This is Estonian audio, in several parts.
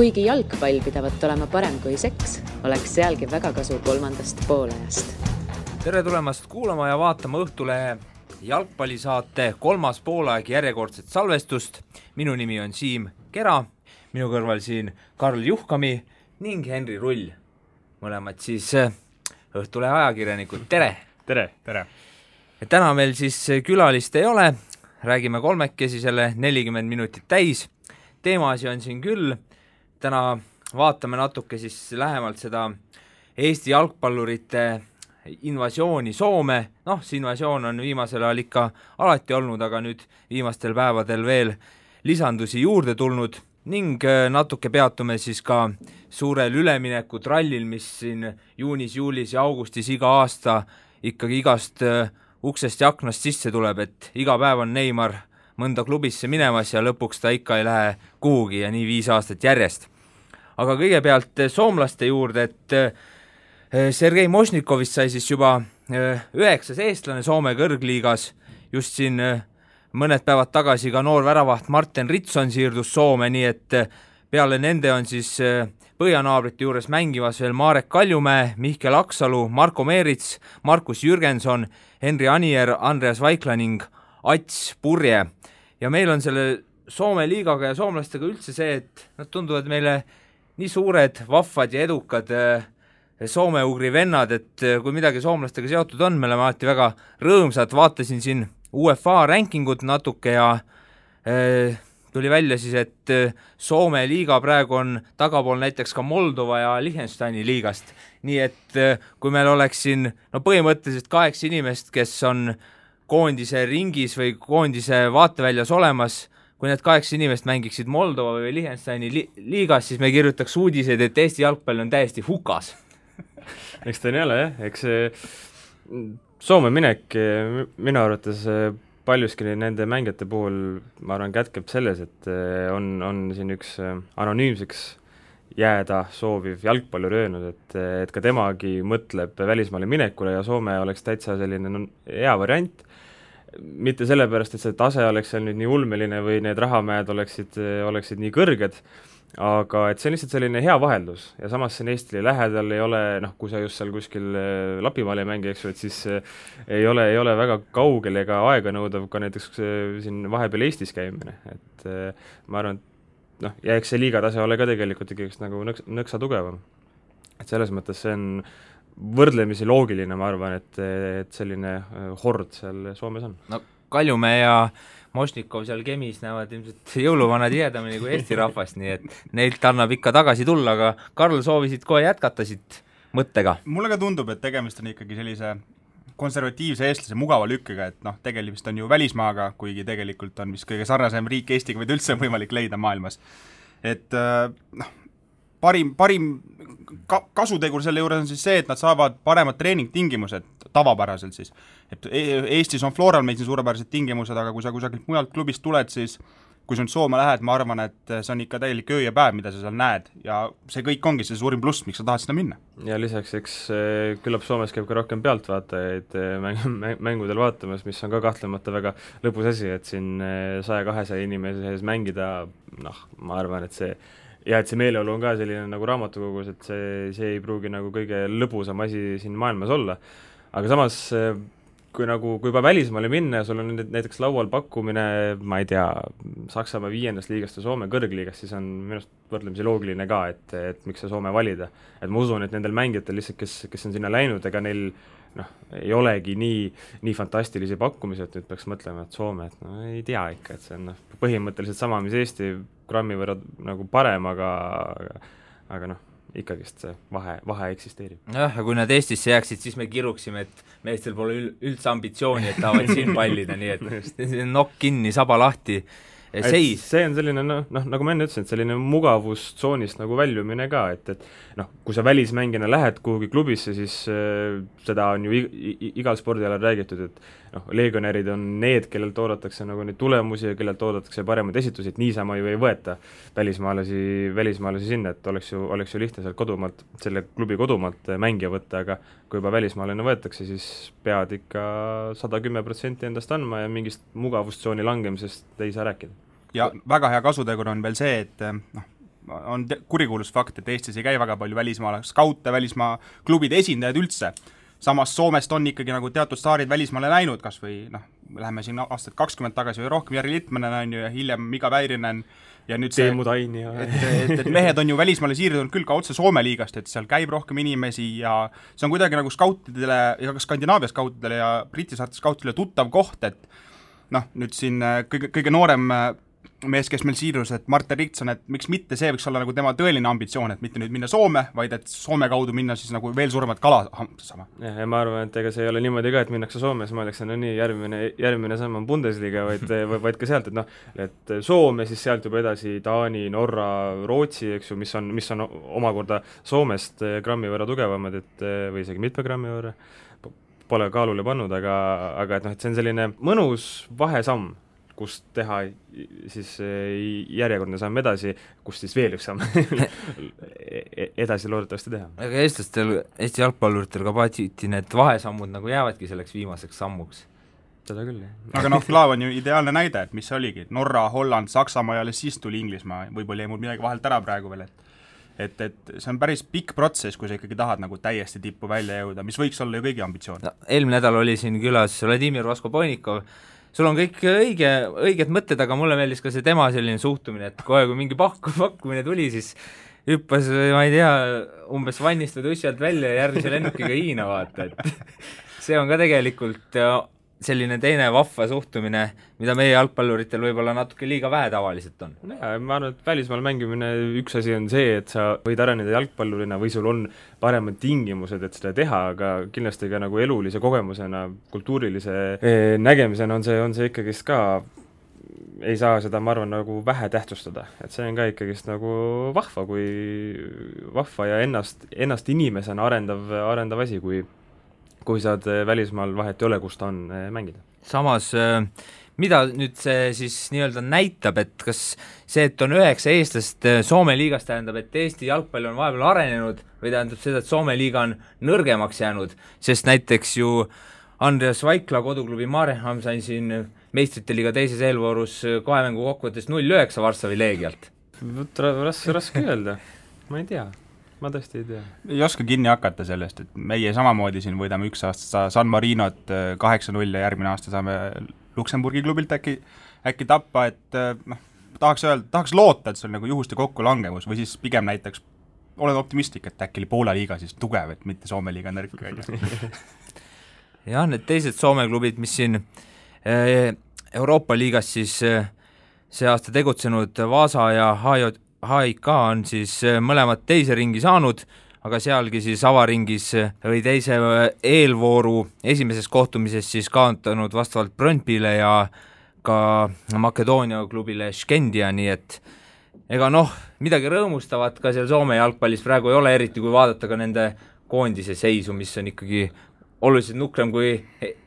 Kuigi jalgpall pidavat olema parem kui seks, oleks sealgi väga kasu kolmandast poolajast. Tere tulemast kuulama ja vaatama Õhtulehe jalgpallisaate kolmas poolaeg järjekordset salvestust. Minu nimi on Siim Kera, minu kõrval siin Karl Juhkami ning Henri Rull. Mõlemad siis Õhtulehe ajakirjanikud. Tere! Tere! Tere! Täna meil siis külalist ei ole, räägime kolmekesi selle 40 minutit täis. Teemasi on siin küll. Täna vaatame natuke siis lähemalt seda Eesti jalgpallurite invasiooni Soome. See invasioon on viimasel ajal ikka alati olnud, aga nüüd viimastel päevadel veel lisandusi juurde tulnud ning natuke peatume siis ka suurel ülemineku trallil, mis siin juunis, juulis ja augustis iga aasta ikkagi igast uksest ja aknast sisse tuleb, et iga päev on Neymar mõnda klubisse minemas ja lõpuks ta ikka ei lähe kuhugi ja nii 5 aastat järjest. Aga kõigepealt soomlaste juurde, et Sergei Mošnikovist sai siis juba 9. eestlane Soome kõrgliigas. Just siin mõned päevad tagasi ka noor väravaht Martin Ritson siirdus Soome, nii et peale nende on siis põhjanaabrite juures mängimas veel Marek Kaljumäe, Mihkel Aksalu, Marko Meerits, Markus Jürgenson, Henri Anier, Andreas Vaikla ning Ats Purje. Ja meil on selle Soome liigaga ja soomlastega üldse see, et nad tunduvad meile nii suured, vahvad ja edukad soome-ugri vennad, et kui midagi soomlastega seotud on, me oleme alati väga rõõmsad. Vaatasin siin UEFA rankingut natuke ja tuli välja siis, et Soome liiga praegu on tagapool näiteks ka Moldova ja Liechtensteini liigast. Nii et kui meil oleks siin põhimõtteliselt 8 inimest, kes on koondise ringis või koondise vaateväljas olemas, kui need 8 inimest mängiksid Moldova või Liechtensteini liigas, siis me kirjutaks uudiseid, et Eesti jalgpall on täiesti hukas. Eks ta nii ole, jah. Eks Soome minek minu arvates paljuski nende mängijate puhul, ma arvan, kätkeb selles, et on siin üks anonüümseks jääda sooviv jalgpallur öelnud, et ka temagi mõtleb välismaale minekule ja Soome oleks täitsa selline hea variant. Mitte sellepärast, et see tase oleks seal nüüd nii ulmeline või need rahamäed oleksid nii kõrged, aga et see on lihtsalt selline hea vaheldus ja samas siin Eestile lähedal ei ole, kui sa just seal kuskil Lapimaal ei mängi, eks ju, et siis ei ole väga kaugel ega aega nõudav ka näiteks siin vahepeal Eestis käimine, et ma arvan, et ja eks see liigatase ole ka tegelikult ikkagi nagu nõksa tugevam. Et selles mõttes see on võrdlemisi loogiline, ma arvan, et selline hord seal Soomes on. Kaljumäe ja Mošnikov seal Kemis näevad ilmselt jõuluvana tihedamini kui Eesti rahvast, nii et neilt annab ikka tagasi tulla, aga Karl, soovisid kohe jätkata siit mõttega? Mulle ka tundub, et tegemist on ikkagi sellise konservatiivse eestlase mugava lükkega, et tegemist on ju välismaaga, kuigi tegelikult on vist kõige sarnasem riik Eestiga, või üldse võimalik leida maailmas. Et parim kasutegur selle juures on siis see, et nad saavad paremad treeningtingimused tavapäraselt siis. Et Eestis on Floral meil siin suurepärased tingimused, aga kui sa kusagilt mujalt klubist tuled, siis kui sa nüüd Soome lähed, ma arvan, et see on ikka täielik öö ja päev, mida sa seal näed ja see kõik ongi see suurim pluss, miks sa tahad sinna minna. Ja lisaks, eks küllap Soomes käib ka rohkem pealtvaatajaid mängudel vaatamas, mis on ka kahtlemata väga lõbus asi, et siin 100-200 inimese sees mängida, ma arvan, et see ja et see meeleolu on ka selline nagu raamatukogus, et see ei pruugi nagu kõige lõbusam asi siin maailmas olla. Aga samas, kui juba välismaale minna ja sul on näiteks laual pakkumine, ma ei tea, Saksamaa 5. liigast ja Soome kõrgliigast, siis on minust võrdlemisi loogiline ka, et miks see Soome valida. Et ma usun, et nendel mängijatel lihtsalt, kes on sinna läinud, ega neil ei olegi nii fantastilisi pakkumisi, et nüüd peaks mõtlema, et Soome, et ei tea ikka, et see on põhimõtteliselt sama, mis Eesti grammi võrra nagu parem, aga ikkagist see vahe eksisteerib. Ja kui nad Eestisse jääksid, siis me kiruksime, et meestel pole üldse ambitsiooni, et tahavad siin pallida, nii et nokk kinni, saba lahti, seis. See on selline, nagu ma enne ütlesin, et selline mugavustsoonist nagu väljumine ka, et kui sa välismängina lähed kuhugi klubisse, siis seda on ju igal spordialal räägitud, et legionärid on need, kellelt oodatakse nagu neid tulemusi ja kellelt oodatakse paremaid esitusi, et niisama ju ei võeta välismaalasi sinna, et oleks ju lihtne sealt kodumaalt, selle klubi kodumaalt mängija võtta, aga kui juba välismaalane võetakse, siis pead ikka 110% endast andma ja mingist mugavustsooni langemisest ei saa rääkida. Ja väga hea kasutegur on veel see, et on kurikuulus fakt, et Eestis ei käi väga palju välismaale skaute, välismaa klubide esindajad üldse. Samas Soomest on ikkagi nagu teatud staarid välismaale läinud, kas või läheme siin aastat 20 tagasi või rohkem, Jari Littmanen on ju ja hiljem Mika Väirinen ja nüüd see, et mehed on ju välismaale siirdunud küll ka otse Soome liigast, et seal käib rohkem inimesi ja see on kuidagi nagu skautidele ja ka Skandinaavia skautidele ja Briti saarte skautidele tuttav koht, et nüüd siin kõige noorem mees, kes meil siirus, et Martin Riktson, et miks mitte see võiks olla nagu tema tõeline ambitsioon, et mitte nüüd minna Soome, vaid et Soome kaudu minna siis nagu veel suuremat kala saama. Ja ma arvan, et ega see ei ole niimoodi ka, et minnakse Soome, siis ma oleks nii järgmine samm on Bundesliga, vaid ka sealt, et Soome, siis sealt juba edasi Taani, Norra, Rootsi, eks ju, mis on omakorda Soomest grammi võrra tugevamad, või isegi mitme grammi võrra, pole kaalule pannud, aga et see on selline mõnus vahesamm, kust teha siis järjekordne samm edasi, kust siis veel üks samm edasi loodetavasti teha. Aga Eesti jalgpalluritel ka patsiti need vahesammud nagu jäävadki selleks viimaseks sammuks. Seda küll, jah. Aga Klaav on ju ideaalne näide, et mis see oligi, Norra, Holland, Saksamaa ja alles siis tuli Inglismaa, võib-olla jäi mul midagi vahelt ära praegu veel, et see on päris pikk protsess, kui sa ikkagi tahad nagu täiesti tippu välja jõuda, mis võiks olla ju kõigi ambitsioon. Eelmine nädal oli siin külas Vladimir Vaskoponikov, sul on kõik õiged mõtted, aga mulle meeldis ka see tema selline suhtumine, et kohe kui mingi pakkumine tuli, siis hüppas, ma ei tea, umbes vannist või tussi alt välja ja järgmise lennukiga Hiina vaata, et see on ka tegelikult selline teine vahva suhtumine, mida meie jalgpalluritel võib-olla natuke liiga vähe tavaliselt on. Ja, ma arvan, et välismaal mängimine üks asi on see, et sa võid areneda jalgpallurina või sul on paremad tingimused, et seda teha, aga kindlasti ka nagu elulise kogemusena, kultuurilise nägemisena on see ikkagist ka, ei saa seda, ma arvan, nagu vähe tähtsustada. Et see on ka ikkagist nagu vahva ja ennast inimesena arendav asi, kui saad välismaal vahet ei ole, kus ta on mängida. Samas, mida nüüd see siis nii-öelda näitab, et kas see, et on 9 eestlast Soome liigas tähendab, et Eesti jalgpall on vahepeal arenenud või tähendab seda, et Soome liiga on nõrgemaks jäänud, sest näiteks ju Andreas Vaikla koduklubi Mareham sai siin meistrite liiga teises eelvoorus 2 mängu kokkuvõttes 0-9 Varssavi Leegialt. Raske öelda, ma ei tea. Ma tõesti ei tea. Ei oska kinni hakata sellest, et meie samamoodi siin võidame üks aasta San Marinot 8-0 ja järgmine aasta saame Luksemburgi klubilt äkki tappa, et tahaks loota, et see on nagu juhuste kokkulangevus või siis pigem näiteks olen optimistlik, et äkki Poola liiga siis tugev, et mitte Soome liiga nõrk. Jah, need teised Soome klubid, mis siin Euroopa liigas siis see aasta tegutsenud Vaasa ja HIK on siis mõlemad teise ringi saanud, aga sealgi siis avaringis või teise eelvooru esimeses kohtumises siis kaotanud vastavalt Brøndbyle ja ka Makedoonia klubile Skendia, nii et ega midagi rõõmustavat ka seal Soome jalgpallis praegu ei ole, eriti kui vaadata ka nende koondise seisu, mis on ikkagi oluliselt nukrem kui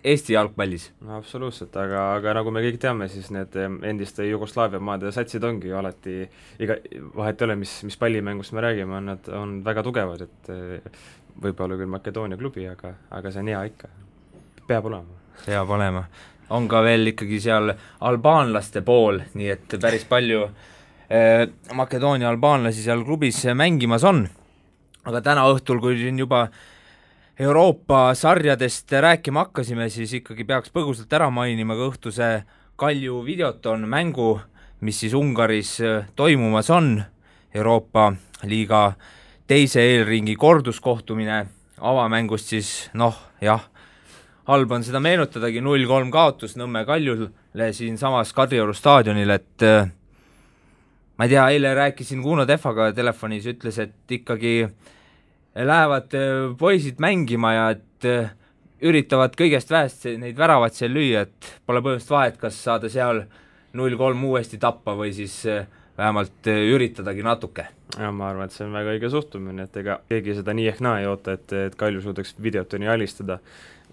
Eesti jalgpallis. No absoluutselt, aga nagu me kõik teame, siis need endiste Jugoslaavia maade satsid ongi ju alati, vahet ei ole, mis pallimängust me räägime, nad on väga tugevad, et võib-olla küll Makedoonia klubi, aga see on hea ikka. Peab olema. On ka veel ikkagi seal albaanlaste pool, nii et päris palju Makedoonia albaanlasi seal klubis mängimas on. Aga täna õhtul, kui juba Euroopa sarjadest rääkima hakkasime, siis ikkagi peaks põgusalt ära mainima ka õhtuse Kalju Videoton mängu, mis siis Ungaris toimumas on. Euroopa liiga teise eelringi korduskohtumine avamängust siis, halb on seda meenutadagi, 0-3 kaotus Nõmme Kaljule siin samas Kadrioru staadionil, et ma ei tea, eile rääkisin Kuno Tehvaga telefonis, ütles, et ikkagi lähevad poisid mängima ja et üritavad kõigest vähest neid väravad seal lüüa, et pole põhimõtteliselt vahet, kas saada seal 0-3 uuesti tappa või siis vähemalt üritadagi natuke. Ja ma arvan, et see on väga õige suhtumine, et ega keegi seda nii ehk naa ei oota, et Kalju suudaks Videotoni alistada.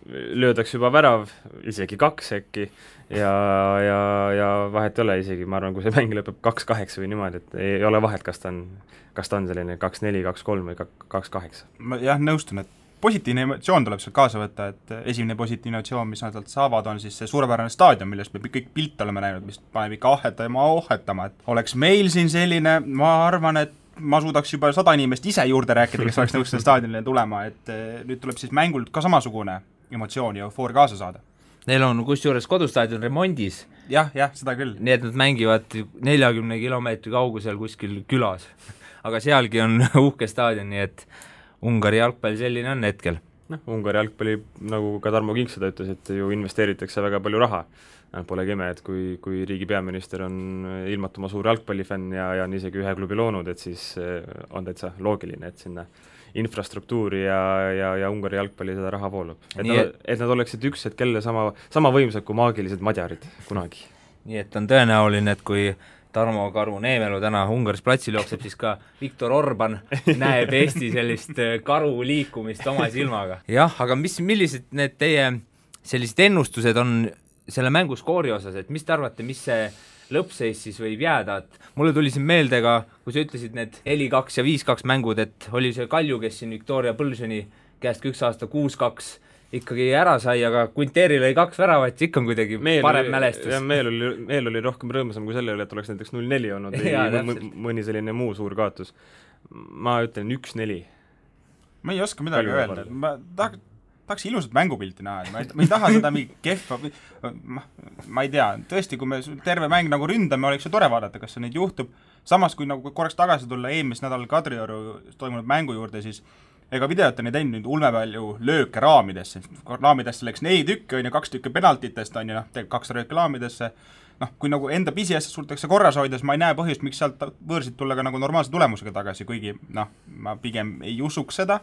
Löödaks juba värav, isegi 2 äkki ja vahet ei ole isegi, ma arvan, kui see mäng lõpeb 2-8 või niimoodi, et ei ole vahet, kas ta on selline 2-4, 2-3 või 2-8. Ma nõustun, et positiivne emotsioon tuleb sealt kaasa võtta, et esimene positiivne emotsioon, mis nad saavad, on siis see suurepärane staadion, millest me kõik pilte oleme näinud, mis paneb ikka ohhetama, et oleks meil siin selline, ma arvan, et ma suudaks juba 100 inimest ise juurde rääkida, kes oleks nõus selle staadionile tulema, et nüüd tuleb siis mängult ka samasugune emotsioon ja eufoor kaasa saada. Neil on kusjuures kodustaadion remondis. Jah, seda küll. Nii et nad mängivad 40 kilomeetri kaugusel kuskil külas. Aga sealgi on uhke staadion, nii et Ungari jalgpall selline on hetkel. Ungari jalgpalli, nagu ka Tarmo Kink seda ütles, et ju investeeritakse väga palju raha. Polegi ime, et kui riigi peaminister on ilmatuma suur jalgpallifänn ja on isegi ühe klubi loonud, et siis on täitsa loogiline, et sinna infrastruktuuri ja Ungari jalgpalli seda raha voolub. Et nad oleksid üks hetk kelle sama võimsad kui maagilised madjarid kunagi. Nii et on tõenäoline, et kui Tarmo Karu Neemelu täna Ungaris platsil jookseb, siis ka Viktor Orban näeb Eesti sellist karu liikumist oma silmaga. Jah, aga millised need teie sellised ennustused on selle mängu skoori osas, et mis te arvate, mis see lõppseis siis võib jääda, et mulle tuli siin meelde ka, kui sa ütlesid need 4-2 ja 5-2 mängud, et oli see Kalju, kes siin Viktoria Põlsoni käest üks aasta 6-2 ikkagi ära sai, aga Quinteril oli 2 väravat, ikka on kuidagi parem mälestus. Meel oli rohkem rõõmsam kui selle üle, et oleks näiteks 0-4 olnud või mõni selline muu suur kaotus. Ma ütlen 1-4. Ma ei oska midagi öelda. Ma tahaks ilusat mängupilti näha, ma ei taha seda mingi kehva, ma ei tea, tõesti, kui me terve mäng nagu ründame, oleks ju tore vaadata, kas see neid juhtub. Samas, kui nagu korraks tagasi tulla eelmis nädal Kadrioru toimunud mängu juurde, siis ega videot on ei teinud nüüd ulme palju lööke raamidesse. Raamidesse läks 4 tükki, 2 tükki penaltitest on ju, 2 lööke raamidesse. Kui nagu enda pisiasjast suudetakse korras hoida, siis ma ei näe põhjust, miks sealt võõrsid tulla ka nagu normaalse tulemusega tagasi, kuigi ma pigem ei usuks seda,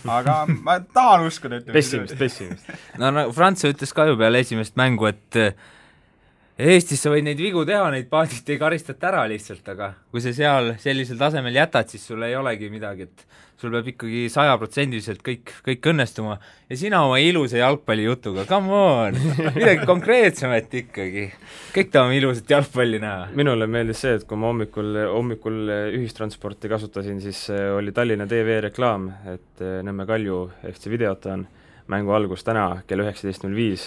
aga ma tahan uskuda. Pessimist. No Frants ütles ka ju peale esimest mängu, et Eestis sa võid neid vigu teha, neid paadid ei karistata ära lihtsalt, aga kui sa seal sellisel tasemel jätad, siis sul ei olegi midagi, et sul peab ikkagi 100% kõik õnnestuma ja sina oma ilusa jalgpalli jutuga, come on, midagi konkreetsemat ikkagi. Kõik tahame ilusat jalgpalli näha. Minule meeldis see, et kui ma hommikul ühistransporti kasutasin, siis oli Tallinna TV reklaam, et Nõmme Kalju FC Videoton mängu algus täna kell 19.05,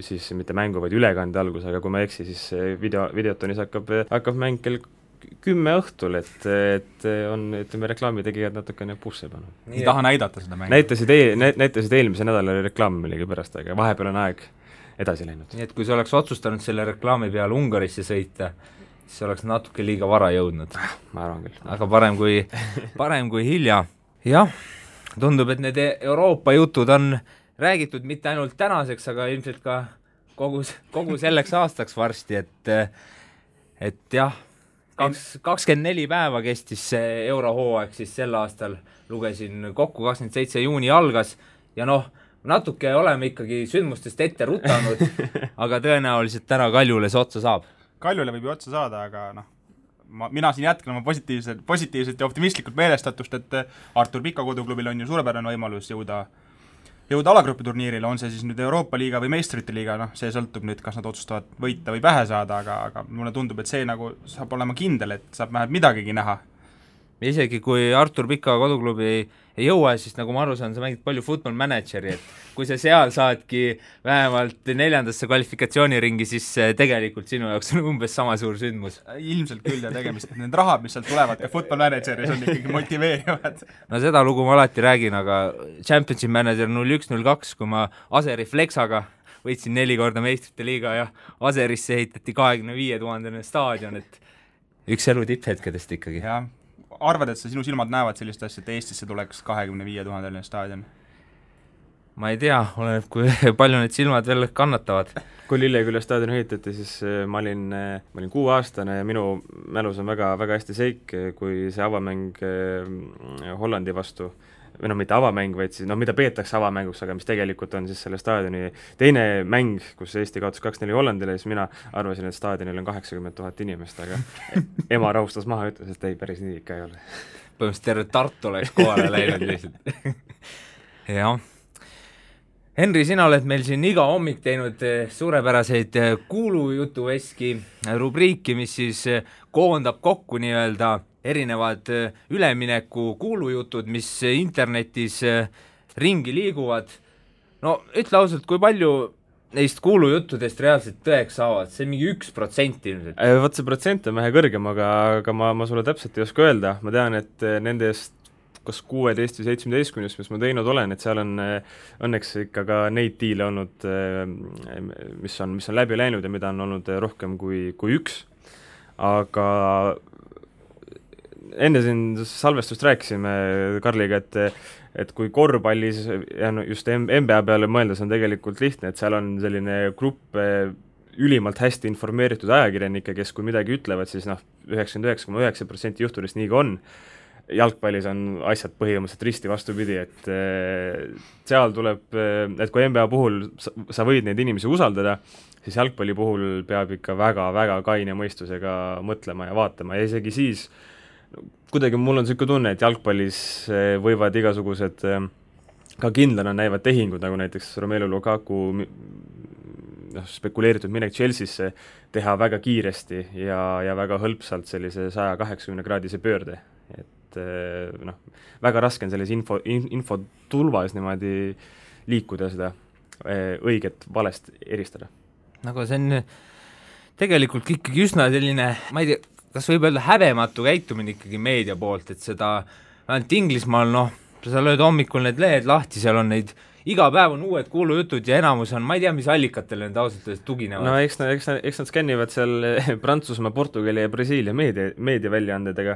siis mitte mängu, vaid ülekande algus, aga kui ma eksi, siis Videotonis hakkab mäng kell 10 õhtul, et on, ütleme, reklaamitegijad natukene pusse pannud. Ei taha näidata seda mängu. Näitasid eelmise nädala reklaami millegi pärast, aga vahepeal on aeg edasi läinud. Nii et kui sa oleks otsustanud selle reklaami peale Ungarisse sõita, siis oleks natuke liiga vara jõudnud. Ma arvan küll. Aga parem kui hilja. Jah, tundub, et need Euroopa jutud on räägitud mitte ainult tänaseks, aga ilmselt ka kogu selleks aastaks varsti, et jah, 24 päeva kestis see eurohooaeg siis sel aastal, lugesin kokku, 27 juuni algas ja natuke oleme ikkagi sündmustest ette rutanud, aga tõenäoliselt täna Kaljule see otsa saab. Kaljule võib ju otsa saada, aga mina siin jätkan oma positiivselt ja optimistlikult meelestatust, et Artur Pika koduklubil on ju suurepärane võimalus jõuda alagrupiturniirile, on see siis nüüd Euroopa liiga või meistrite liiga, see sõltub nüüd, kas nad otsustavad võita või pähe saada, aga mulle tundub, et see nagu saab olema kindel, et saab vähemalt midagigi näha. Isegi kui Artur Pika koduklubi ei jõua, siis nagu ma aru saan, sa mängid palju Football Manageri, et kui sa seal saadki vähemalt 4. kvalifikatsiooniringi, siis tegelikult sinu jaoks on umbes sama suur sündmus. Ilmselt küll ja tegemist, et need rahad, mis sealt tulevad ka Football Manageris on ikkagi motiveerivad. No seda lugu ma alati räägin, aga Championship Manager 01-02, kui ma Aseri Flexaga võitsin 4 korda meistrite liiga ja Aserisse ehitati 25 000 staadion, et üks elu tipphetkedest ikkagi. Jah, arvad, et sinu silmad näevad sellist asja, et Eestisse tuleks 25 000 staadion? Ma ei tea, oleneb, kui palju need silmad veel kannatavad. Kui Lilleküla staadion ehitati, siis ma olin 6-aastane ja minu mälus on väga, väga hästi seik, kui see avamäng Hollandi vastu, või mitte avamäng, vaid siis, mida peetakse avamänguks, aga mis tegelikult on siis selle staadioni teine mäng, kus Eesti kaotas 2-4 Hollandile, siis mina arvasin, et staadionil on 80 000 inimest, aga ema rahustas maha ja ütles, et ei, päris nii ikka ei ole. Põhimõtteliselt terve Tartu oleks kohale läinud lihtsalt. Jah. Henri, sina oled meil siin iga hommik teinud suurepäraseid kuulujutuveski rubriiki, mis siis koondab kokku nii-öelda erinevad ülemineku kuulujutud, mis internetis ringi liiguvad. No ütle ausalt, kui palju neist kuulujuttudest reaalselt tõeks saavad, see on mingi 1% ilmselt. Vot see protsent on vähe kõrgem, aga ma sulle täpselt ei oska öelda, ma tean, et nendest kas 16 või 17, mis ma teinud olen, et seal on õnneks ikka ka neid diile olnud, mis on läbi läinud ja mida on olnud rohkem kui üks. Aga enne siin salvestust rääkisime Karliga, et kui korvpallis ja just NBA peale mõeldes on tegelikult lihtne, et seal on selline grupp ülimalt hästi informeeritud ajakirjanikke, kes kui midagi ütlevad, siis 99,9% juhtudest nii ka on. Jalgpallis on asjad põhimõtteliselt risti vastupidi, et seal tuleb, et kui NBA puhul sa võid neid inimesi usaldada, siis jalgpalli puhul peab ikka väga-väga kaine mõistusega mõtlema ja vaatama ja isegi siis kuidagi mul on selline tunne, et jalgpallis võivad igasugused ka kindlana näivad tehingud, nagu näiteks Romelu Lukaku spekuleeritud minek Chelsea'sse teha väga kiiresti ja väga hõlpsalt sellise 180-kraadise pöörde. Väga raske on selles infotulvas niimoodi liikuda seda õiget valest eristada. Nagu see on tegelikult ikkagi üsna selline, ma ei tea, kas võib öelda häbematu käitumine ikkagi meedia poolt, et seda ainult Inglismaal, sa lööd hommikul need lehed lahti, seal on neid iga päev on uued kuulujutud ja enamus on, ma ei tea, mis allikatele need ausalt tuginevad. Eks nad skännivad seal Prantsusmaa, Portugali ja Brasiilia meedia väljaandedega,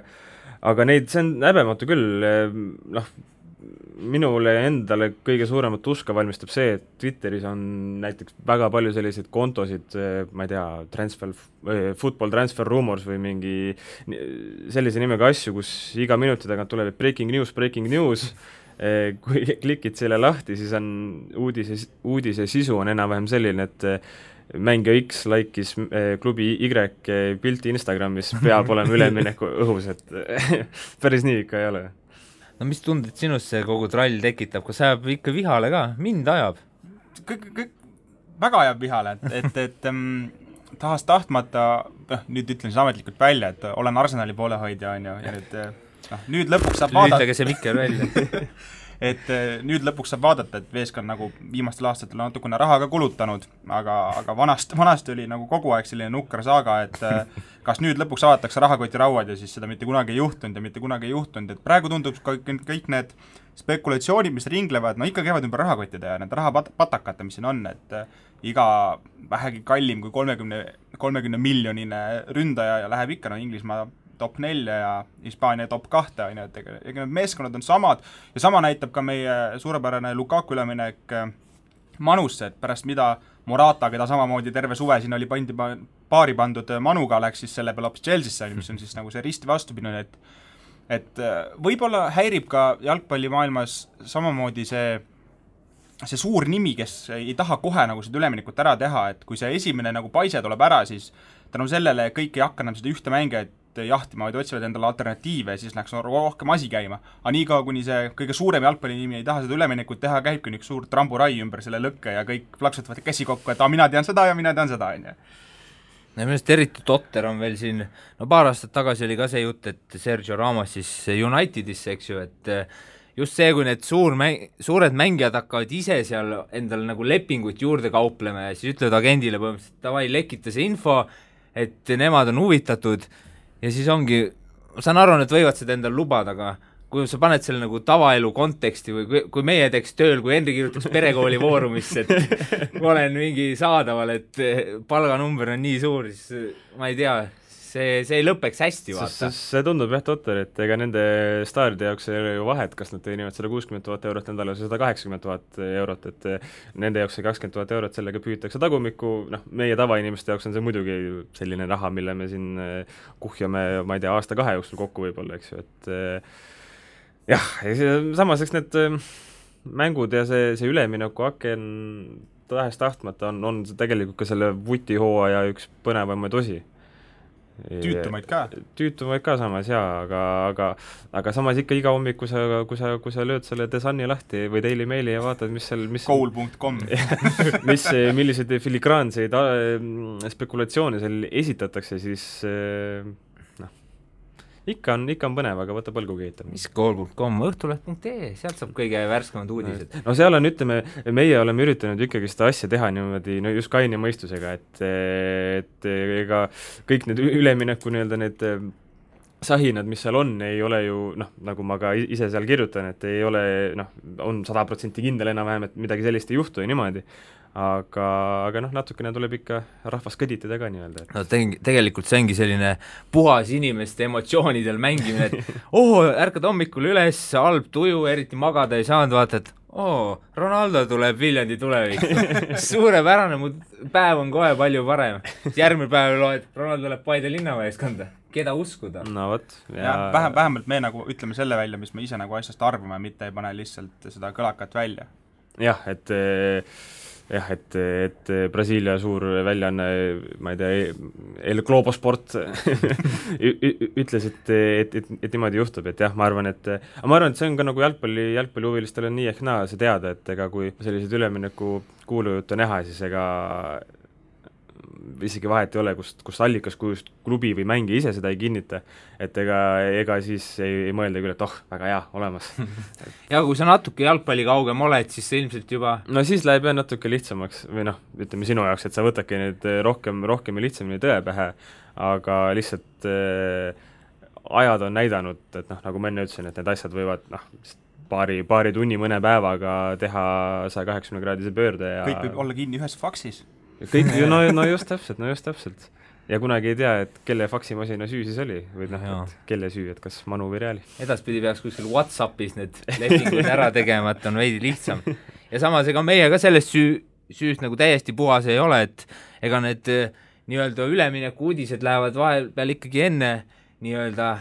aga neid, see on häbematu küll, minule endale kõige suuremat uska valmistab see, et Twitteris on näiteks väga palju selliseid kontosid, ma ei tea, football transfer rumors või mingi sellise nimega asju, kus iga minuti tagant tuleb breaking news, kui klikid selle lahti, siis on uudise sisu on enam-vähem selline, et mängija X laikis klubi Y pilti Instagramis, peab olema ülemineku õhus, et päris nii ikka ei ole. No mis tunded sinust see kogu trall tekitab, kas ajab ikka vihale ka? Mind ajab. Väga ajab vihale, et tahas tahtmata, nüüd ütlen siis ametlikult välja, et olen Arsenali poolehoidja, on ju, ja nüüd lõpuks saab vaadata. Lüütage see mikker välja. Et nüüd lõpuks saab vaadata, et Veesk on nagu viimastel aastatel natukene raha ka kulutanud, aga vanasti oli nagu kogu aeg selline nukker saaga, et kas nüüd lõpuks avatakse rahakoti rauad ja siis seda mitte kunagi ei juhtunud, et praegu tundub kõik need spekulatsioonid, mis ringlevad, ikka käivad ümber rahakottide ja need rahapatakate, mis siin on, et iga vähegi kallim kui 30 miljonine ründaja ja läheb ikka Inglismaa top 4 ja Hispaania top 2, et need meeskonnad on samad ja sama näitab ka meie suurepärane Lukaku üleminek Manusse, et pärast mida Morata, keda samamoodi terve suve siin oli paari pandud Manuga, läks siis selle peale hoopis Chelsea'sse, mis on siis nagu see risti vastupidine, et võib-olla häirib ka jalgpallimaailmas samamoodi see suur nimi, kes ei taha kohe nagu seda üleminekut ära teha, et kui see esimene nagu paise tuleb ära, siis tänu sellele kõik ei hakka enam seda ühte mängijat jahtima, vaid otsivad endale alternatiive ja siis läks rohkem asi käima. Aga nii ka, kuni see kõige suurem jalgpallinimi ei taha seda üleminekut teha, käibki üks suur tramburai ümber selle lõkke ja kõik plaksutavad käsi kokku, et mina tean seda ja mina tean seda, on ju. Millest eriti totter on veel siin, paar aastat tagasi oli ka see jutt, et Sergio Ramos siis Unitedisse, eks ju, et just see, kui need suured mängijad hakkavad ise seal endale nagu lepinguid juurde kauplema ja siis ütlevad agendile põhimõtteliselt, davai, lekita see info, et nemad on huvitatud ja siis ongi, ma saan aru, et võivad seda endale lubada, aga kui sa paned selle nagu tavaelu konteksti või kui meie teeks tööl, kui Henri kirjutaks perekooli voorumisse, et ma olen mingi saadaval, et palganumber on nii suur, siis ma ei tea, see ei lõpeks hästi, vaata. See tundub jah totter, et ega nende staaride jaoks ei ole ju vahet, kas nad teenivad 160 000 eurot nädalas või 180 000 eurot, et nende jaoks see 20 000 eurot, sellega püütakse tagumikku, meie tavainimeste jaoks on see muidugi selline raha, mille me siin kuhjame, ma ei tea, aasta-2 jooksul kokku võib-olla, eks ju, et jah, samas eks need mängud ja see ülemineku aken tahes tahtmata on tegelikult ka selle vutihooaja üks põnevamaid osi. Tüütumaid ka samas, jaa, aga samas ikka iga hommik, kui sa lööd selle The Sunni lahti või Daily Maili ja vaatad, mis seal Goal.com milliseid filigraanseid spekulatsioone seal esitatakse, siis ikka on põnev, aga võta põlgu keetab. mis kool.com, õhtuleht.ee, sealt saab kõige värskemad uudised. No seal on, ütleme, meie oleme üritanud ikkagi seda asja teha niimoodi, no just kaine mõistusega, et ega kõik need ülemineku nii-öelda need sahinad, mis seal on, ei ole ju nagu ma ka ise seal kirjutan, et ei ole, on 100% kindel enam-vähem, et midagi sellist ei juhtu ja niimoodi. Aga natukene tuleb ikka rahvas kõditada ka nii-öelda. No tegelikult see ongi selline puhas inimeste emotsioonidel mängimine, et ärkad hommikul üles, halb tuju, eriti magada ei saanud, vaatad, Ronaldo tuleb Viljandi tulevik. Suurepärane, mu päev on kohe palju parem. Järgmine päev loed, Ronaldo tuleb Paide linnameeskonda. Keda uskuda? No võt. Ja vähemalt me nagu ütleme selle välja, mis me ise nagu asjast arvame, mitte ei pane lihtsalt seda kõlakat välja. Jah, et Brasiilia suur väljaanne, ma ei tea, El Globo Sport ütles, et niimoodi juhtub, et jah, ma arvan, et see on ka nagu jalgpallihuvilistel on nii ehk naa see teada, et ega kui sellised ülemineku kuulujutte näha, siis ega isegi vahet ei ole, kust allikas, kust klubi või mängija ise seda ei kinnita, et ega siis ei mõelda küll, et väga hea, olemas. Ja kui sa natuke jalgpalli kaugem oled, siis see ilmselt juba... No siis läheb jah natuke lihtsamaks, või ütleme sinu jaoks, et sa võtadki nüüd rohkem ja lihtsamini tõe pähe, aga lihtsalt ajad on näidanud, et nagu ma enne ütlesin, et need asjad võivad paari tunni mõne päevaga teha 180-kraadise pöörde ja kõik võib olla kinni ühes faksis. Kõik, no just täpselt. Ja kunagi ei tea, et kelle faksimasina süü siis oli, või et kelle süü, et kas Manu või Reali. Edaspidi peaks kuskil WhatsAppis need lepingud ära tegema, et on veidi lihtsam. Ja samas, ega meie ka sellest süüst nagu täiesti puhas ei ole, et ega need nii-öelda ülemineku uudised lähevad vahepeal ikkagi enne nii-öelda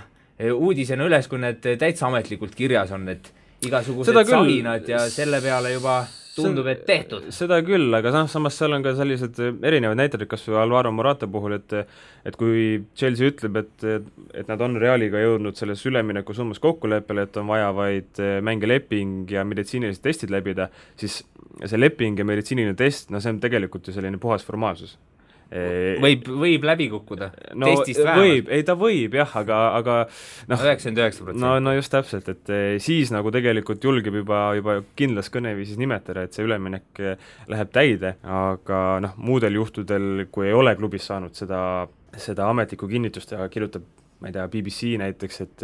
uudisena üles, kui need täitsa ametlikult kirjas on, et igasugused sahinad ja selle peale juba tundub, et tehtud. Seda küll, aga samas seal on ka sellised erinevad näited, kas või Alvaro Morata puhul, et kui Chelsea ütleb, et nad on Realiga jõudnud selles ülemineku summas kokkuleppele, et on vaja vaid mängeleping ja meditsiinilised testid läbida, siis see leping ja meditsiiniline test, see on tegelikult ju selline puhas formaalsus. Võib läbi kukkuda, testist vähemalt. Ta võib jah, aga 99%. No just täpselt, et siis nagu tegelikult julgeb juba kindlas kõneviisis nimetada, et see üleminek läheb täide, aga muudel juhtudel, kui ei ole klubis saanud seda ametlikku kinnitust ja kirjutab, ma ei tea, BBC näiteks, et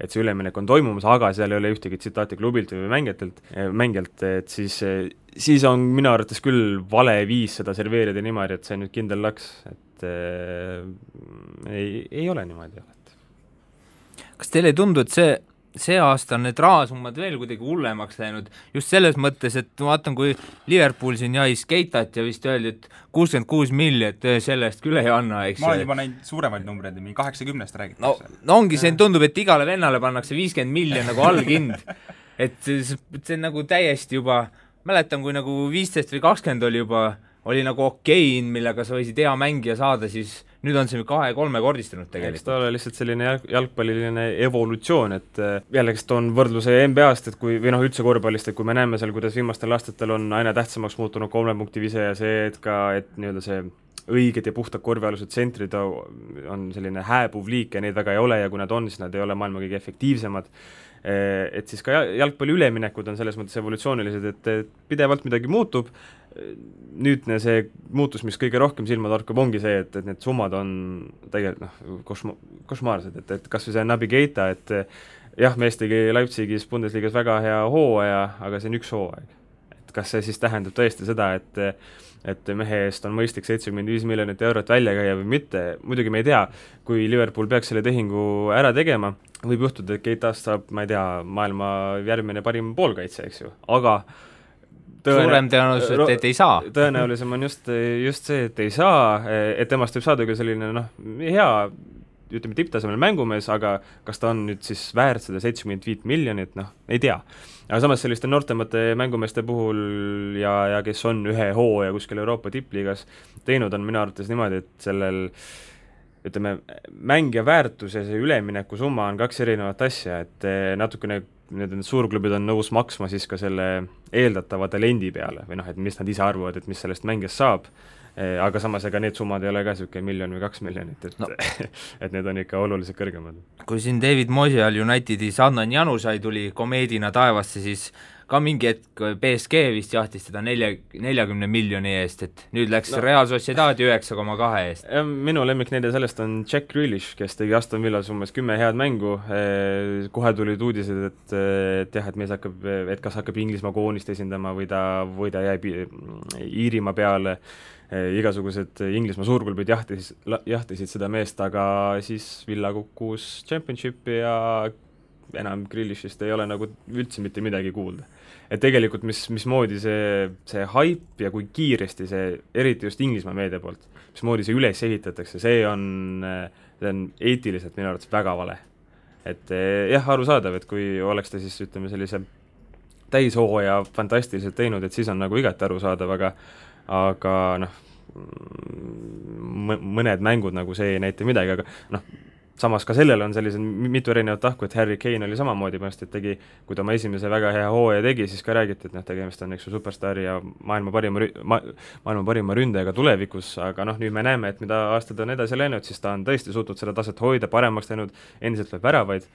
see üleminek on toimumas, aga seal ei ole ühtegi tsitaati klubilt või mängijalt, et siis on minu arvates küll vale viis seda serveerida niimoodi, et see nüüd kindel laks, et ei ole niimoodi. Kas teile ei tundu, et see aasta on need rahasummad veel kuidagi hullemaks läinud, just selles mõttes, et ma vaatan, kui Liverpool siin jais Keitat ja vist öeldi, et 66 miljonit sellest küll ei anna, eks. Ma olen juba näinud suuremaid numbreid, 80-st räägitakse. No ongi see, tundub, et igale vennale pannakse 50 miljon nagu allhind, et see nagu täiesti juba, mäletan, kui nagu 15 või 20 oli nagu okei, millega sa võisid hea mängija saada, siis nüüd on see 2-3 kordistanud tegelikult. Eks ta ole lihtsalt selline jalgpalliline evolutsioon, et jällegi toon võrdluse NBA-st, et kui, või üldse korvpallist, et kui me näeme seal, kuidas viimastel aastatel on aina tähtsamaks muutunud 3 punkti vise ja see, et nii-öelda see õiged ja puhtad korvialused tsentrid on selline hääbuv liik ja neid väga ei ole ja kui nad on, siis nad ei ole maailma kõige efektiivsemad. Et siis ka jalgpalli üleminekud on selles mõttes evolutsioonilised, et pidevalt midagi muutub. Nüüdne see muutus, mis kõige rohkem silma torkab, ongi see, et need summad on tegelikult košmaarsed, et kas või see Naby Keita, et jah, mees tegi Leipzigis Bundesligas väga hea hooaja, aga see on üks hooaeg. Et kas see siis tähendab tõesti seda, et mehe eest on mõistlik 75 miljonit eurot välja käia või mitte, muidugi me ei tea, kui Liverpool peaks selle tehingu ära tegema, võib juhtuda, et Keitast saab, ma ei tea, maailma järgmine parim poolkaitse, eks ju, aga suurem tõenäoliselt, et ei saa. Tõenäolisem on just see, et ei saa, et temast võib saada küll selline hea, ütleme tipptasemel mängumees, aga kas ta on nüüd siis väärt seda 75 miljonit, ei tea. Aga samas selliste noortemate mängumeeste puhul ja kes on ühe hooaja kuskil Euroopa tippliigas teinud, on minu arvates niimoodi, et sellel ütleme, mängija väärtus ja see ülemineku summa on 2 erinevat asja, et natukene need suurklubid on nõus maksma siis ka selle eeldatava talendi peale või et mis nad ise arvavad, et mis sellest mängijast saab, aga samas ega need summad ei ole ka niisugune 1 miljon või 2 miljonit, et no. et need on ikka oluliselt kõrgemad. Kui siin David Moyal Unitedis Adnan Janusai tuli komeedina taevasse, siis ka mingi hetk PSG vist jahtis teda 40 miljoni eest, et nüüd läks Real Sociedadi 9,2 eest. Minu lemmiknäide sellest on Jack Grealish, kes tegi Aston Villas umbes 10 head mängu, kohe tulid uudised, et jah, et mees hakkab, et kas hakkab Inglismaa koonist esindama või ta jääb Iirimaa peale, igasugused Inglismaa suurklubid jahtisid seda meest, aga siis Villa kukkus Championshipi ja enam Grealishist ei ole nagu üldse mitte midagi kuulda. Et tegelikult mismoodi see hype ja kui kiiresti see, eriti just Inglismaa meedia poolt, mismoodi see üles ehitatakse, see on eetiliselt minu arvates väga vale. Et jah, arusaadav, et kui oleks ta siis, ütleme, sellise täishooaja fantastiliselt teinud, et siis on nagu igati arusaadav, aga noh, mõned mängud nagu see ei näita midagi, aga noh, samas ka sellel on sellised mitu erinevat tahku, et Harry Kane oli samamoodi, et tegi, kui ta oma esimese väga hea hooaja tegi, siis ka räägiti, et tegemist on superstaari ja maailma parima ründajaga tulevikus, aga noh, nüüd me näeme, et mida aastad on edasi läinud, siis ta on tõesti suutnud seda taset hoida, paremaks teinud, endiselt lööb väravaid,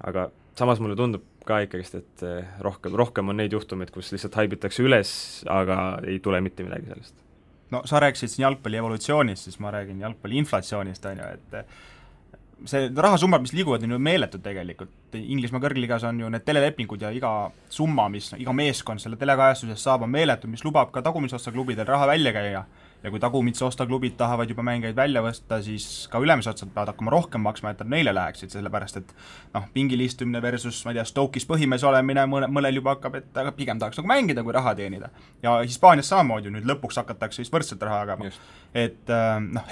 aga samas mulle tundub ka ikkagist, et rohkem on neid juhtumeid, kus lihtsalt haibitakse üles, aga ei tule mitte midagi sellest. No sa rääkisid siin jalgpalli evolutsioonist, siis ma räägin jalgpalli inflatsioonist, on ju, et see rahasummad, mis liiguvad, on ju meeletud tegelikult. Inglismaa kõrgligas on ju need telelepingud ja iga summa, mis iga meeskond selle telekajastusest saab, on meeletu, mis lubab ka tagumisosta klubidel raha välja käia. Ja kui tagumisosta klubid tahavad juba mängeid välja võsta, siis ka ülemisotsa peavad hakkama rohkem maksma, et nad neile läheksid, sellepärast et pingilistumine versus, ma ei tea, Stoke'is põhimees olemine mõnel juba hakkab, et aga pigem tahaks nagu mängida, kui raha teenida. Ja Hispaanias samamoodi nüüd lõpuks hakatakse vist võrdselt raha jagama. Et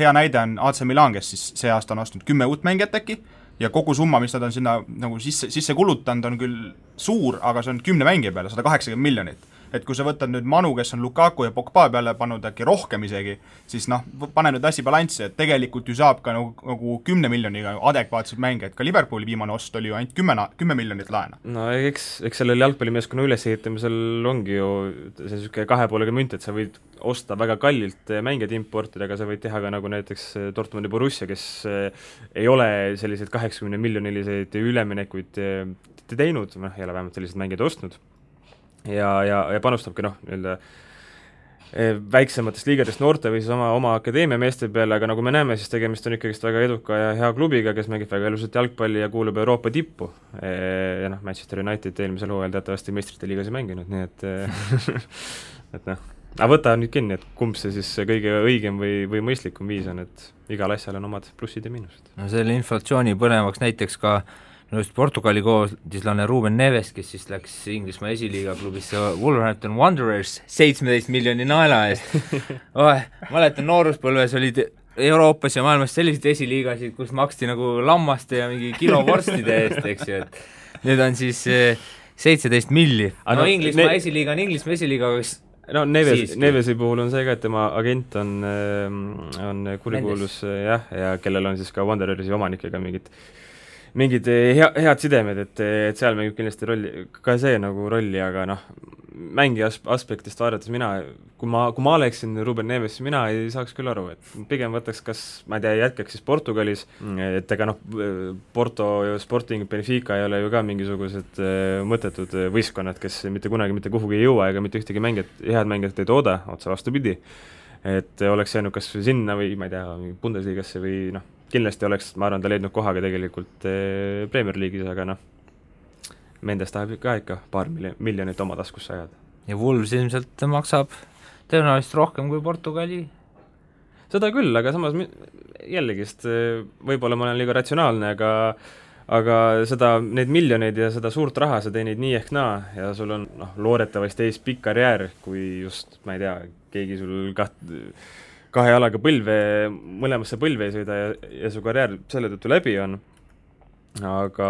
hea näide on AC Milan, kes siis see aasta on ostnud 10 uut mängijat äkki, ja kogu summa, mis nad on sinna nagu sisse kulutanud, on küll suur, aga see on 10 mängija peale, 180 miljonit. Et kui sa võtad nüüd Manu, kes on Lukaku ja Pogba peale pannud äkki rohkem isegi, siis pane nüüd asi balanssi, et tegelikult ju saab ka nagu 10 miljoniga adekvaatseid mänge, et ka Liverpooli viimane ost oli ju ainult 10 miljonit laena. No eks sellel jalgpallimeeskonna ülesehitamisel ongi ju see niisugune kahe poolega münt, et sa võid osta väga kallilt mängijad importida, aga sa võid teha ka nagu näiteks Dortmundi Borussia, kes ei ole selliseid 80 miljoniliseid üleminekuid teinud, ei ole vähemalt sellised mängijad ostnud. Ja panustabki väiksematest liigadest noorte või siis oma akadeemia meeste peale, aga nagu me näeme, siis tegemist on ikkagist väga eduka ja hea klubiga, kes mängib väga ilusat jalgpalli ja kuulub Euroopa tippu. Ja Manchester United eelmisel hooajal teatavasti meistrite liigas ei mänginud, nii et et aga võta nüüd kinni, et kumb see siis kõige õigem või mõistlikum viis on, et igal asjal on omad plussid ja miinused. No selle inflatsiooni põnevaks näiteks ka just Portugali koodislane Ruben Neves, kes siis läks Inglismaa esiliiga klubisse Wolverhampton Wanderers 17 miljoni naela eest. Mäletan, nooruspõlves olid Euroopas ja maailmas selliseid esiliigasid, kus maksti nagu lammaste ja mingi kilovorstide eest, eks ju, et nüüd on siis 17 milli. No Inglismaa esiliiga on Inglismaa esiliiga, aga Nevesi puhul on see ka, et tema agent on kurikuulus ja kellel on siis ka Wanderersi omanikega mingid head sidemed, et seal mängib kindlasti rolli, ka see nagu rolli, aga mängi aspektist vaadates kui ma oleksin Ruben Neves, mina ei saaks küll aru, et pigem võtaks kas, ma ei tea, jätkaks siis Portugalis, et ega Porto ja Sporting Benfica ei ole ju ka mingisugused mõttetud võistkonnad, kes mitte kunagi mitte kuhugi ei jõua ega mitte ühtegi head mängijat ei tooda, otse vastupidi, et oleks jäänud kas sinna või ma ei tea, Bundesligasse või kindlasti oleks, ma arvan, ta leidnud kohaga tegelikult Premier League'is, aga Mendes tahab ka ikka paar miljonit oma taskusse ajada. Ja Wolves ilmselt maksab tõenäoliselt rohkem kui Portugali? Seda küll, aga samas jällegist võib-olla ma olen liiga ratsionaalne, aga neid miljoneid ja seda suurt raha sa teenid nii ehk naa ja sul on loodetavasti ees pikk karjäär, kui just, ma ei tea, keegi sul kahe jalaga mõlemasse põlve ei sõida ja su karjäär selle tõttu läbi on, aga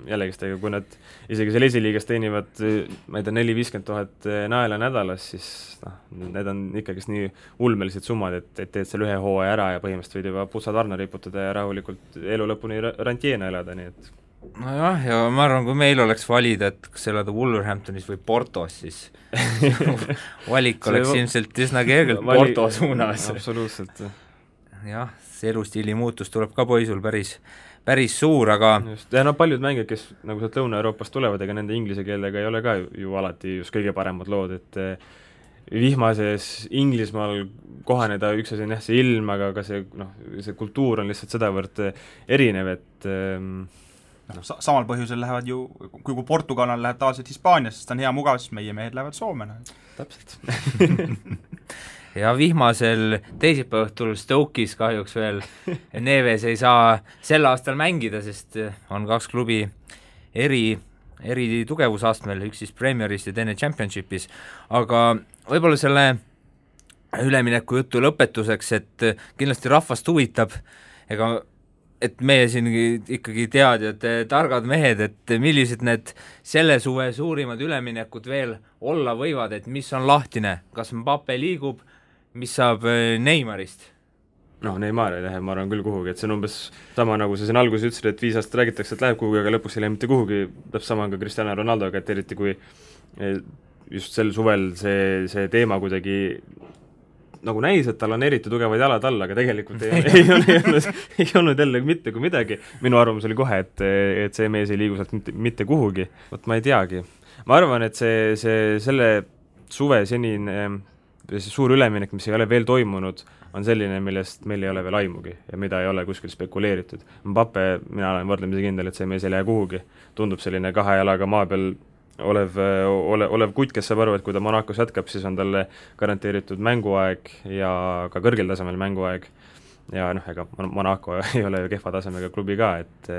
jällegist, kui nad isegi seal esiliigas teenivad, ma ei tea, 4-50 000 naela nädalas, siis need on ikkagist nii ulmelised summad, et teed selle ühe hooaja ära ja põhimõtteliselt võid juba putsad varna riputada ja rahulikult elu lõpuni rantjeena elada, nii et nojah, ja ma arvan, kui meil oleks valida, et kas elada Wolverhamptonis või Portos, siis valik oleks ilmselt üsna kergelt Porto suunas. Absoluutselt. jah, see elustiili muutus tuleb ka poisul päris suur, aga just, ja paljud mängijad, kes nagu sealt Lõuna-Euroopast tulevad, ega nende inglise keelega ei ole ka ju alati just kõige paremad lood, et vihmases Inglismaal kohaneda, üks asi on jah see ilm, aga ka see, see kultuur on lihtsalt sedavõrd erinev, et samal põhjusel lähevad ju, kui Portugal läheb tavaliselt Hispaanias, sest on hea mugav, siis meie mehed lähevad Soome. Täpselt. ja vihmasel teisipäevaõhtul Stoke'is kahjuks veel Neves ei saa sel aastal mängida, sest on 2 klubi eri tugevusastmel, üks siis Premieris ja teine Championshipis, aga võib-olla selle ülemineku jutu lõpetuseks, et kindlasti rahvast huvitab, et meie siin ikkagi teadjad, targad mehed, et millised need selle suve suurimad üleminekud veel olla võivad, et mis on lahtine, kas Mbappe liigub, mis saab Neymarist? Neymar ei lähe, ma arvan küll kuhugi, et see on umbes sama, nagu sa siin alguses ütlesid, et 5 aastat räägitakse, et läheb kuhugi, aga lõpuks ei lähe mitte kuhugi, täpselt sama ka Cristiano Ronaldoga, et eriti kui just sel suvel see teema kuidagi nagu näis, et tal on eriti tugevad jalad all, aga tegelikult ei olnud jälle mitte kui midagi. Minu arvamus oli kohe, et see mees ei liigu sealt mitte kuhugi. Vot ma ei teagi. Ma arvan, et selle suve senine suur üleminek, mis ei ole veel toimunud, on selline, millest meil ei ole veel aimugi ja mida ei ole kuskil spekuleeritud. Mbappe, mina olen võrdlemisi kindel, et see mees ei lähe kuhugi. Tundub selline 2 jalaga maa peal olev kutt, kes saab aru, et kui ta Monacos jätkab, siis on talle garanteeritud mänguaeg ja ka kõrgel tasemel mänguaeg. Ja ega Monaco ei ole ju kehva tasemega klubi ka, et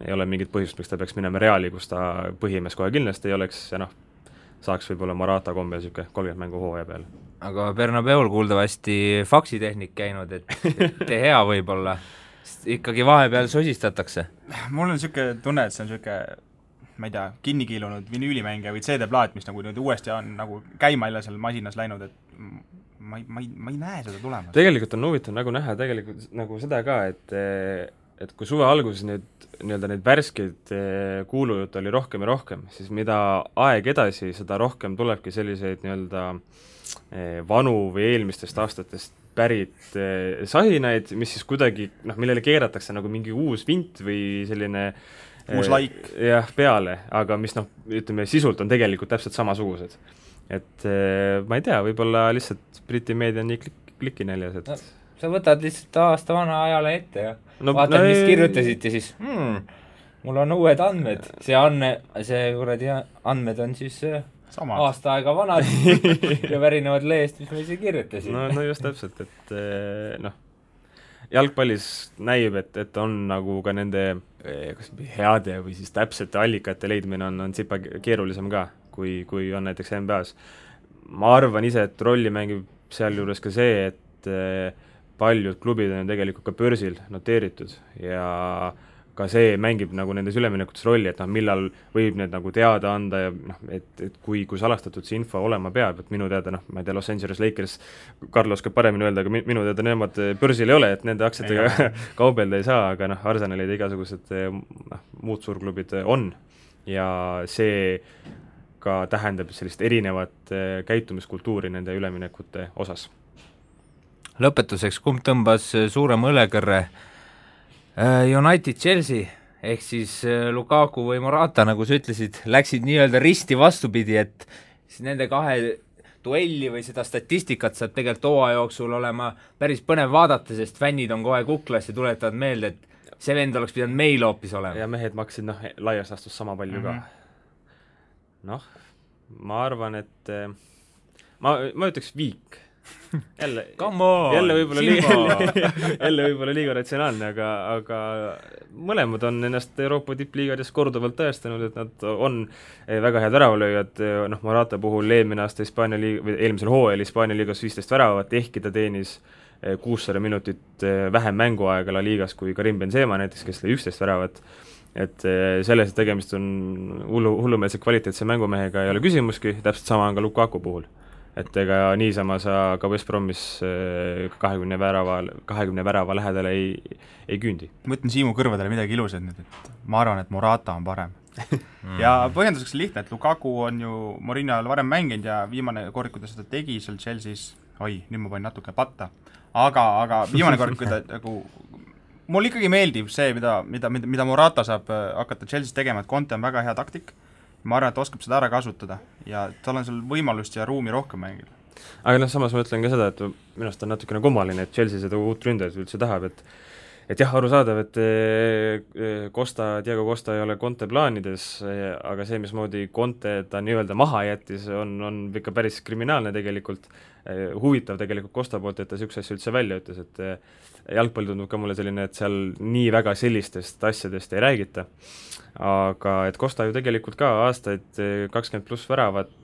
ei ole mingit põhjust, miks ta peaks minema Reali, kus ta põhimees kohe kindlasti ei oleks ja saaks võib-olla Morata kombel 30 mängu hooaja peale. Aga Bernabeul kuuldavasti faksitehnik käinud, et hea võib-olla, ikkagi vahepeal sosistatakse. Mul on niisugune tunne, et see on niisugune, ma ei tea, kinnikiilunud vinüülimängija või CD-plaat, mis nagu uuesti on nagu käima jälle seal masinas läinud, et ma ei näe seda tulemas. Tegelikult on huvitav nagu näha tegelikult nagu seda ka, et kui suve alguses neid värskeid kuulujutte oli rohkem ja rohkem, siis mida aeg edasi, seda rohkem tulebki selliseid vanu või eelmistest aastatest pärit sahinaid, mis siis kuidagi, millele keeratakse nagu mingi uus vint või selline uus laik peale, aga mis ütleme, sisult on tegelikult täpselt samasugused. Et ma ei tea, võib-olla lihtsalt Briti meedia on nii klikinäljas, et sa võtad lihtsalt aasta vana ajale ette ja vaatad, mis kirjutasid ja siis mul on uued andmed. See kuradi andmed on siis aasta aega vanad ja pärinevad lehest, mis me ise kirjutasid. No just täpselt, et jalgpallis näib, et on nagu ka nende heade või siis täpsete allikate leidmine on tsipa keerulisem ka, kui on näiteks NBA-s. Ma arvan ise, et rolli mängib sealjuures ka see, et paljud klubid on tegelikult ka börsil noteeritud ja ka see mängib nagu nendes üleminekutes rolli, et millal võib need nagu teada anda ja et kui salastatud see info olema peab, et minu teada, ma ei tea, Los Angeles Lakers, Carlos käib paremini öelda, aga minu teada nemad börsil ei ole, et nende aktsiatega kaubelda ei saa, aga Arsenalid ja igasugused muud suurklubid on ja see ka tähendab sellist erinevat käitumiskultuuri nende üleminekute osas. Lõpetuseks, kumb tõmbas suurema õlekõrre? United Chelsea ehk siis Lukaku või Morata, nagu sa ütlesid, läksid nii-öelda risti vastupidi, et siis nende 2 duelli või seda statistikat saab tegelikult hooaja jooksul olema päris põnev vaadata, sest fännid on kohe kuklas ja tuletavad meelde, et see vend oleks pidanud meil hoopis olema. Ja mehed maksid laias astus sama palju ka. Ma arvan, et ma ütleks viik. jälle võib-olla liiga ratsionaalne, aga mõlemad on ennast Euroopa tippliigades korduvalt tõestanud, et nad on väga head väravalööjad. Morata puhul eelmisel hooajal Hispaania liigas 15 väravat, ehkki ta teenis 600 minutit vähem mänguaega La liigas kui Karim Benzema näiteks, kes lõi 11 väravat. Et selles tegemist on hullumeelse kvaliteetse mängumehega ei ole küsimuski, täpselt sama on ka Lukaku puhul. et ega niisama sa ka West Bromis 20 värava lähedale ei küündi. Ma ütlen Siimu kõrvadele midagi ilusat nüüd, et ma arvan, et Morata on parem. Ja põhjenduseks lihtne, et Lukaku on ju Mourinho ajal varem mänginud ja viimane kord, kui ta seda tegi seal Chelsea's, nüüd ma panin natuke patta, aga viimane kord, kui ta nagu mul ikkagi meeldib see, mida Morata saab hakata Chelsea's tegema, et Conte on väga hea taktik, ma arvan, et oskab seda ära kasutada ja tal on seal võimalust ja ruumi rohkem mängida. Aga samas ma ütlen ka seda, et minust on natukene kummaline, et Chelsea seda uut ründajat üldse tahab, et jah, arusaadav, et Diego Costa ei ole Conte plaanides, aga see, mismoodi Conte ta nii-öelda maha jättis, on ikka päris kriminaalne tegelikult, huvitav tegelikult Costa poolt, et ta niisuguse asja üldse välja ütles, et jalgpall tundub ka mulle selline, et seal nii väga sellistest asjadest ei räägita, aga et Costa ju tegelikult ka aastaid 20+ väravat,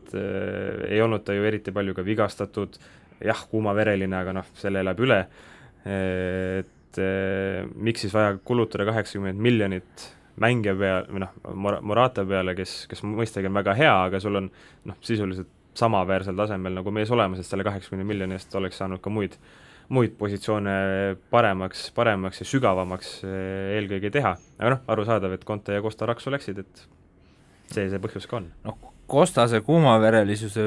ei olnud ta ju eriti palju ka vigastatud, jah, kuumavereline, aga selle elab üle, et miks siis vaja kulutada 80 miljonit mängija peale, või Morata peale, kes mõistagi on väga hea, aga sul on sisuliselt samaväärsel tasemel nagu mees olemas, et selle 80 miljonist oleks saanud ka muid positsioone paremaks ja sügavamaks eelkõige teha. Aga arusaadav, et Conte ja Costa raksu läksid, et see põhjus ka on. Costase kuumaverelisuse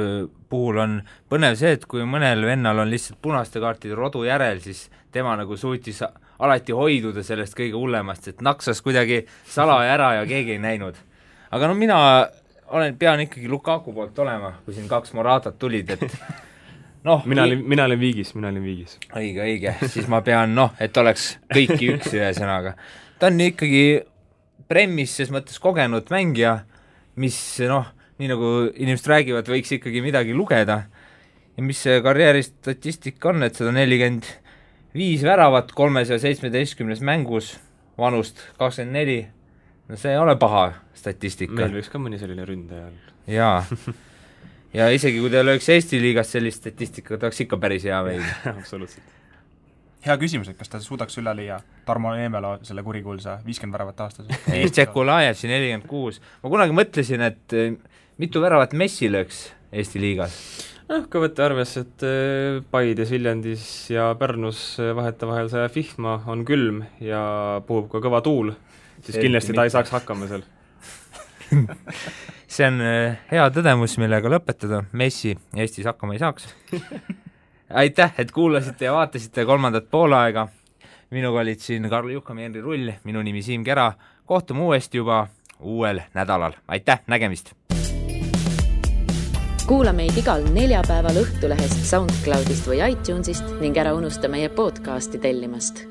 puhul on põnev see, et kui mõnel vennal on lihtsalt punaste kaartide rodu järel, siis tema nagu suutis alati hoiduda sellest kõige hullemast, et naksas kuidagi salaja ära ja keegi ei näinud. Aga mina pean ikkagi Lukaku poolt olema, kui siin 2 Moratat tulid, et mina olen viigis. Õige, siis ma pean, et oleks kõiki üks ühe sõnaga. Ta on ikkagi Premis ses mõttes kogenud mängija, mis nii nagu inimesed räägivad, võiks ikkagi midagi lugeda. Ja mis see karjääri statistika on, et 145 väravat 317 mängus, vanust 24, see ei ole paha statistika. Meil võiks ka mõni selline ründaja. Jaa. Ja isegi kui teil oleks Eesti liigas sellist statistika, ta oleks ikka päris hea meil. Absoluutselt. Hea küsimus, et kas ta suudaks üle liia Tarmo Eemelo selle kurikuulsa 50 väravat aastas? Tšekulajev siin 46. Ma kunagi mõtlesin, et mitu väravat Messi lööks Eesti liigas? Kui võtta arves, et Paides, Viljandis ja Pärnus vahetevahel see vihma on külm ja puhub ka kõva tuul, siis kindlasti ta ei saaks hakkama seal. See on hea tõdemus, millega lõpetada. Messi Eestis hakkama ei saaks. Aitäh, et kuulasite ja vaatasite 3. poolaega. Minuga olid siin Karl Juhkam ja Henri Rull, minu nimi Siim Kera. Kohtume uuesti juba uuel nädalal. Aitäh, nägemist! Kuula meid igal neljapäeval Õhtulehest, SoundCloudist või iTunesist ning ära unusta meie podcasti tellimast.